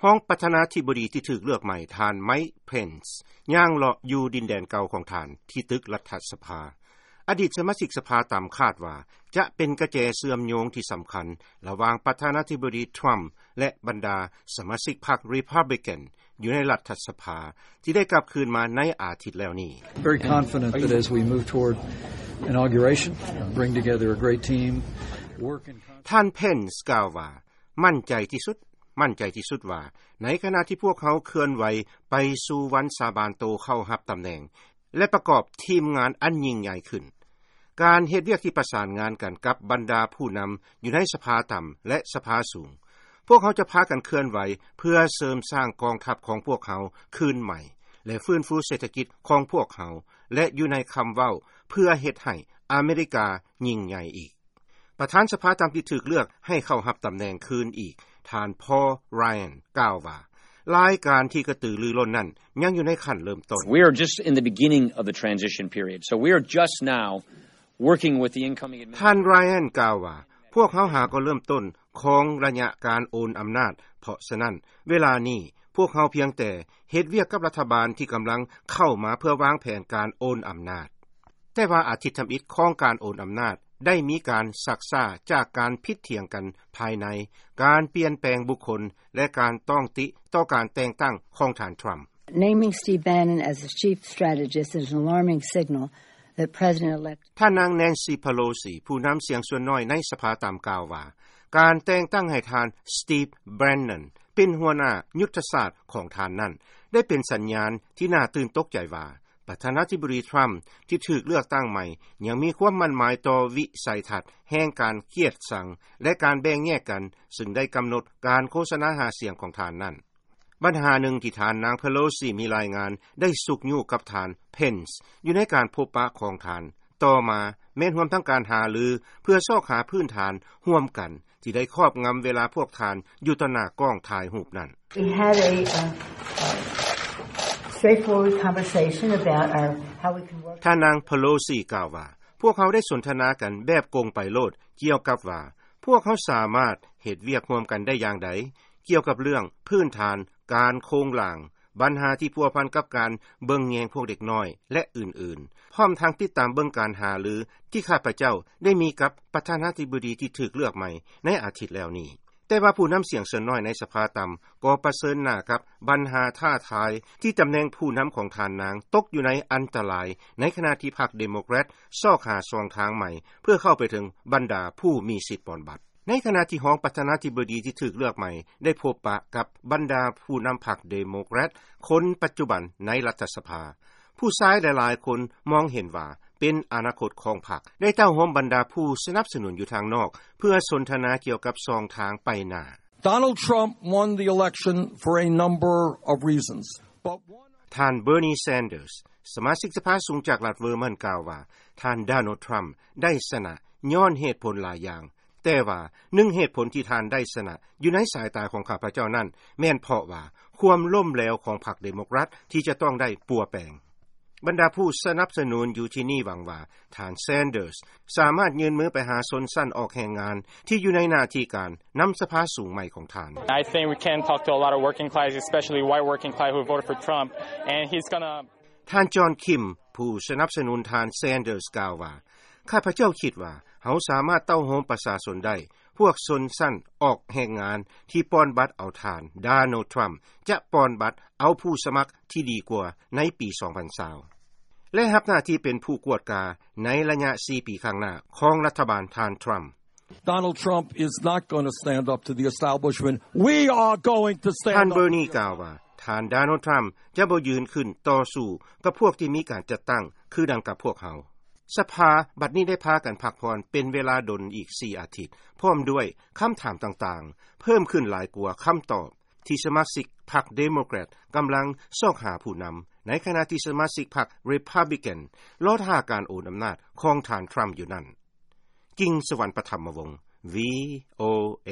ຮອງປະທານາທິບໍດີທີ່ຖືກເລືອກໃໝ່ ທ່ານ Mike Pence ຍ່າງເລາະຢູ່ດິນແດນເກົ່າຂອງທ່ານ ທີ່ຕຶກລັດຖະສະພາ. ອະດີດສະມາຊິກສະພາຕຳຄາດວ່າ ຈະເປັນກະແຈເຊື່ອມໂຍງທີ່ສຳຄັນລະຫວ່າງປະທານາທິບໍດີ Trump ແລະ ບັນດາສະມາຊິກພັກ Republican ຢູ່ໃນລັດຖະສະພາ ທີ່ໄດ້ກັບຄືນມາໃນອາທິດແລ້ວນີ້. Very confident that as we move toward inauguration, bring together a great team, work in concert. ທ່ານ Pence ກ່າວວ່າ ໝັ້ນໃຈທີ່ສຸດ, ໝັ້ນໃຈທີ່ສຸດວ່າ ໃນຂະນະທີ່ພວກເຮົາເຄື່ອນໄຫວໄປສູ່ວັນສາບານໂຕເຂົ້າຮັບຕຳແໜ່ງ ແລະ ປະກອບທີມງານອັນຍິ່ງໃຫຍ່ຂຶ້ນ, ການເຮັດວຽກທີ່ປະສານງານກັນກັບບັນດາຜູ້ນຳຢູ່ໃນສະພາຕ່ຳ ແລະ ສະພາສູງ, ພວກເຮົາຈະພາກັນເຄື່ອນໄຫວເພື່ອເສີມສ້າງກອງທັບຂອງພວກເຮົາຄືນໃໝ່ ແລະ ຟື້ນຟູເສດຖະກິດຂອງພວກເຮົາ ແລະ ຢູ່ໃນຄຳເວົ້າເພື່ອເຮັດໃຫ້ອາເມລິກາຍິ່ງໃຫຍ່ອີກ. ປະທານສະພາຕ່ຳທີ່ຖືກເລືອກໃຫ້ເຂົ້າຮັບຕຳແໜ່ງຄືນອີກ, ທ່ານ Paul Ryan ກ່າວວ່າ ລາຍການທີ່ກະຕືລືລົ້ນນັ້ນຍັງຢູ່ໃນຂັ້ນເລີ່ມຕົ້ນ. We are just in the beginning of the transition period, so we are just now working with the incoming administration. ທ່ານ Ryan ກ່າວວ່າ ພວກເຮົາຫາກໍເລີ່ມຕົ້ນຂອງໄລຍະການໂອນອຳນາດ, ເພາະສະນັ້ນ ເວລານີ້ພວກເຮົາພຽງແຕ່ເຮັດວຽກກັບລັດຖະບານທີ່ກຳລັງເຂົ້າມາເພື່ອວາງແຜນການໂອນອຳນາດ. ແຕ່ວ່າອາທິດທຳອິດຂອງການໂອນອຳນາດໄດ້ມີການຊັກຊ້າຈາກການຜິດຖຽງກັນພາຍໃນ, ການປ່ຽນແປງບຸກຄົນ ແລະ ການຕ້ອງຕິຕໍ່ການແຕ່ງຕັ້ງຂອງທ່ານ Trump. Naming Steve Bannon as the chief strategist is an alarming signal that President-elect. ທ່ານນາງ Nancy Pelosi ຜູ້ນຳສຽງສ່ວນນ້ອຍໃນສະພາຕ່ຳກ່າວວ່າ ການແຕ່ງຕັ້ງໃຫ້ທ່ານ Steve Bannon ເປັນຫົວໜ້າຍຸດທະສາດຂອງທ່ານນັ້ນ ໄດ້ເປັນສັນຍານທີ່ໜ້າຕື່ນຕົກໃຈວ່າ ປະທານາທິບໍດີ Trump ທີ່ຖືກເລືອກຕັ້ງໃໝ່ ຍັງມີຄວາມໝັ້ນໝາຍຕໍ່ວິໄສທັດແຫ່ງການກຽດຊັງ ແລະ ການແບ່ງແຍກກັນ, ຊຶ່ງໄດ້ກຳນົດການໂຄສະນາຫາສຽງຂອງທ່ານນັ້ນ. ບັນຫາໜຶ່ງທີ່ທ່ານນາງ Pelosi ມີລາຍງານໄດ້ຊຸກຍູ້ກັບທ່ານ Pence ຢູ່ໃນການພົບປະຂອງທ່ານ ຕໍ່ມາແມ່ນຮວມທັງການຫາລືເພື່ອຊອກຫາພື້ນຖານຮ່ວມກັນ ທີ່ໄດ້ຄອບງຳເວລາພວກທ່ານຢູ່ຕໍ່ໜ້າກ້ອງຖ່າຍຮູບນັ້ນ. We had a, uh, uh, straightforward conversation about our, how we can work. ທ່ານນາງ Pelosi ກ່າວວ່າ ພວກເຮົາໄດ້ສົນທະນາກັນແບບກົງໄປໂລດ ກ່ຽວກັບວ່າ ພວກເຮົາສາມາດເຮັດວຽກຮ່ວມກັນໄດ້ຢ່າງໃດ ກ່ຽວກັບເລື່ອງພື້ນຖານການໂຄງລ່າງ, ບັນຫາທີ່ພົວພັນກັບການເບິ່ງແຍງພວກເດັກນ້ອຍ ແລະ ອື່ນໆ, ພ້ອມທັງຕິດຕາມເບິ່ງການຫາລືທີ່ຂ້າພະເຈົ້າໄດ້ມີກັບປະທານາທິບໍດີທີ່ຖືກເລືອກໃໝ່ໃນອາທິດແລ້ວນີ້. ແຕ່ວ່າຜູ້ນຳສຽງສ່ວນນ້ອຍໃນສະພາຕ່ຳກໍປະເຊີນໜ້າກັບບັນຫາທ້າທາຍ ທີ່ຕຳແໜ່ງຜູ້ນຳຂອງທ່ານນາງຕົກຢູ່ໃນອັນຕະລາຍ ໃນຂະນະທີ່ພັກ Democrat ຊອກຫາຊ່ອງທາງໃໝ່ເພື່ອເຂົ້າໄປເຖິງບັນດາຜູ້ມີສິດປ່ອນບັດ. ໃນຂະນະທີ່ຮອງປະທານາທິບໍດີທີ່ຖືກເລືອກໃໝ່ໄດ້ພົບປະກັບບັນດາຜູ້ນຳພັກ Democrat ຄົນປັດຈຸບັນໃນລັດຖະສະພາ, ຜູ້ຊາຍຫຼາຍໆຄົນມອງເຫັນວ່າເປັນອະນາຄົດຂອງພັກ ໄດ້ເຕົ້າໂຮມບັນດາຜູ້ສະໜັບສະໜູນຢູ່ທາງນອກ ເພື່ອສົນທະນາກ່ຽວກັບຊ່ອງທາງໄປໜ້າ. Donald Trump won the election for a number of reasons, but one. ທ່ານ Bernie Sanders ສະມາຊິກສະພາສູງຈາກລັດ Vermont ກ່າວວ່າ ທ່ານ Donald Trump ໄດ້ຊະນະຍ້ອນເຫດຜົນຫຼາຍຢ່າງ, ແຕ່ວ່າໜຶ່ງເຫດຜົນທີ່ທ່ານໄດ້ຊະນະຢູ່ໃນສາຍຕາຂອງຂ້າພະເຈົ້ານັ້ນ ແມ່ນເພາະວ່າຄວາມລົ້ມເຫຼວຂອງພັກ Democrat ທີ່ຈະຕ້ອງໄດ້ປົວແປງ. ບັນດາຜູ້ສະໜັບສະໜູນຢູ່ທີ່ນີ້ຫວັງວ່າ ທ່ານ Sanders ສາມາດຍື່ນມືໄປຫາຊົນຊັ້ນອອກແຮງງານທີ່ຢູ່ໃນໜ້າທີ່ການນຳສະພາສູງໃໝ່ຂອງທ່ານ. I think we can talk to a lot of working class, especially white working class who voted for Trump, and he's gonna. ທ່ານ John Kim ຜູ້ສະໜັບສະໜູນທ່ານ Sanders ກ່າວວ່າ ຂ້າພະເຈົ້າຄິດວ່າເຮົາສາມາດເຕົ້າໂຮມປະຊາຊົນໄດ້, ພວກຊົນຊັ້ນອອກແຮງງານທີ່ປ່ອນບັດເອົາທ່ານ Donald Trump ຈະປ່ອນບັດເອົາຜູ້ສະໝັກທີ່ດີກວ່າໃນປີສອງພັນຊາວ ແລະ ຮັບໜ້າທີ່ເປັນຜູ້ກວດກາໃນໄລຍະສີ່ປີຂ້າງໜ້າຂອງລັດຖະບານທ່ານ Trump. Donald Trump is not gonna stand up to the establishment. We are going to stand up. ທ່ານ Bernie ກ່າວວ່າ ທ່ານ Donald Trump ຈະບໍ່ຢືນຂຶ້ນຕໍ່ສູ້ກັບພວກທີ່ມີການຈັດຕັ້ງຄືດັ່ງກັບພວກເຮົາ. ສະພາບັດນີ້ໄດ້ພາກັນພັກຜ່ອນເປັນເວລາດົນອີກສີ່ອາທິດ, ພ້ອມດ້ວຍຄຳຖາມຕ່າງໆ ເພີ່ມຂຶ້ນຫຼາຍກວ່າຄຳຕອບທີ່ສະມາຊິກພັກ Democrat ກຳລັງຊອກຫາຜູ້ນຳ, ໃນຂະນະທີ່ສະມາຊິກພັກ Republican ລໍຖ້າການໂອນອຳນາດຂອງທ່ານ Trump ຢູ່ນັ້ນ. ກິ່ງສະຫວັນ ປະຖຳມະວົງ VOA.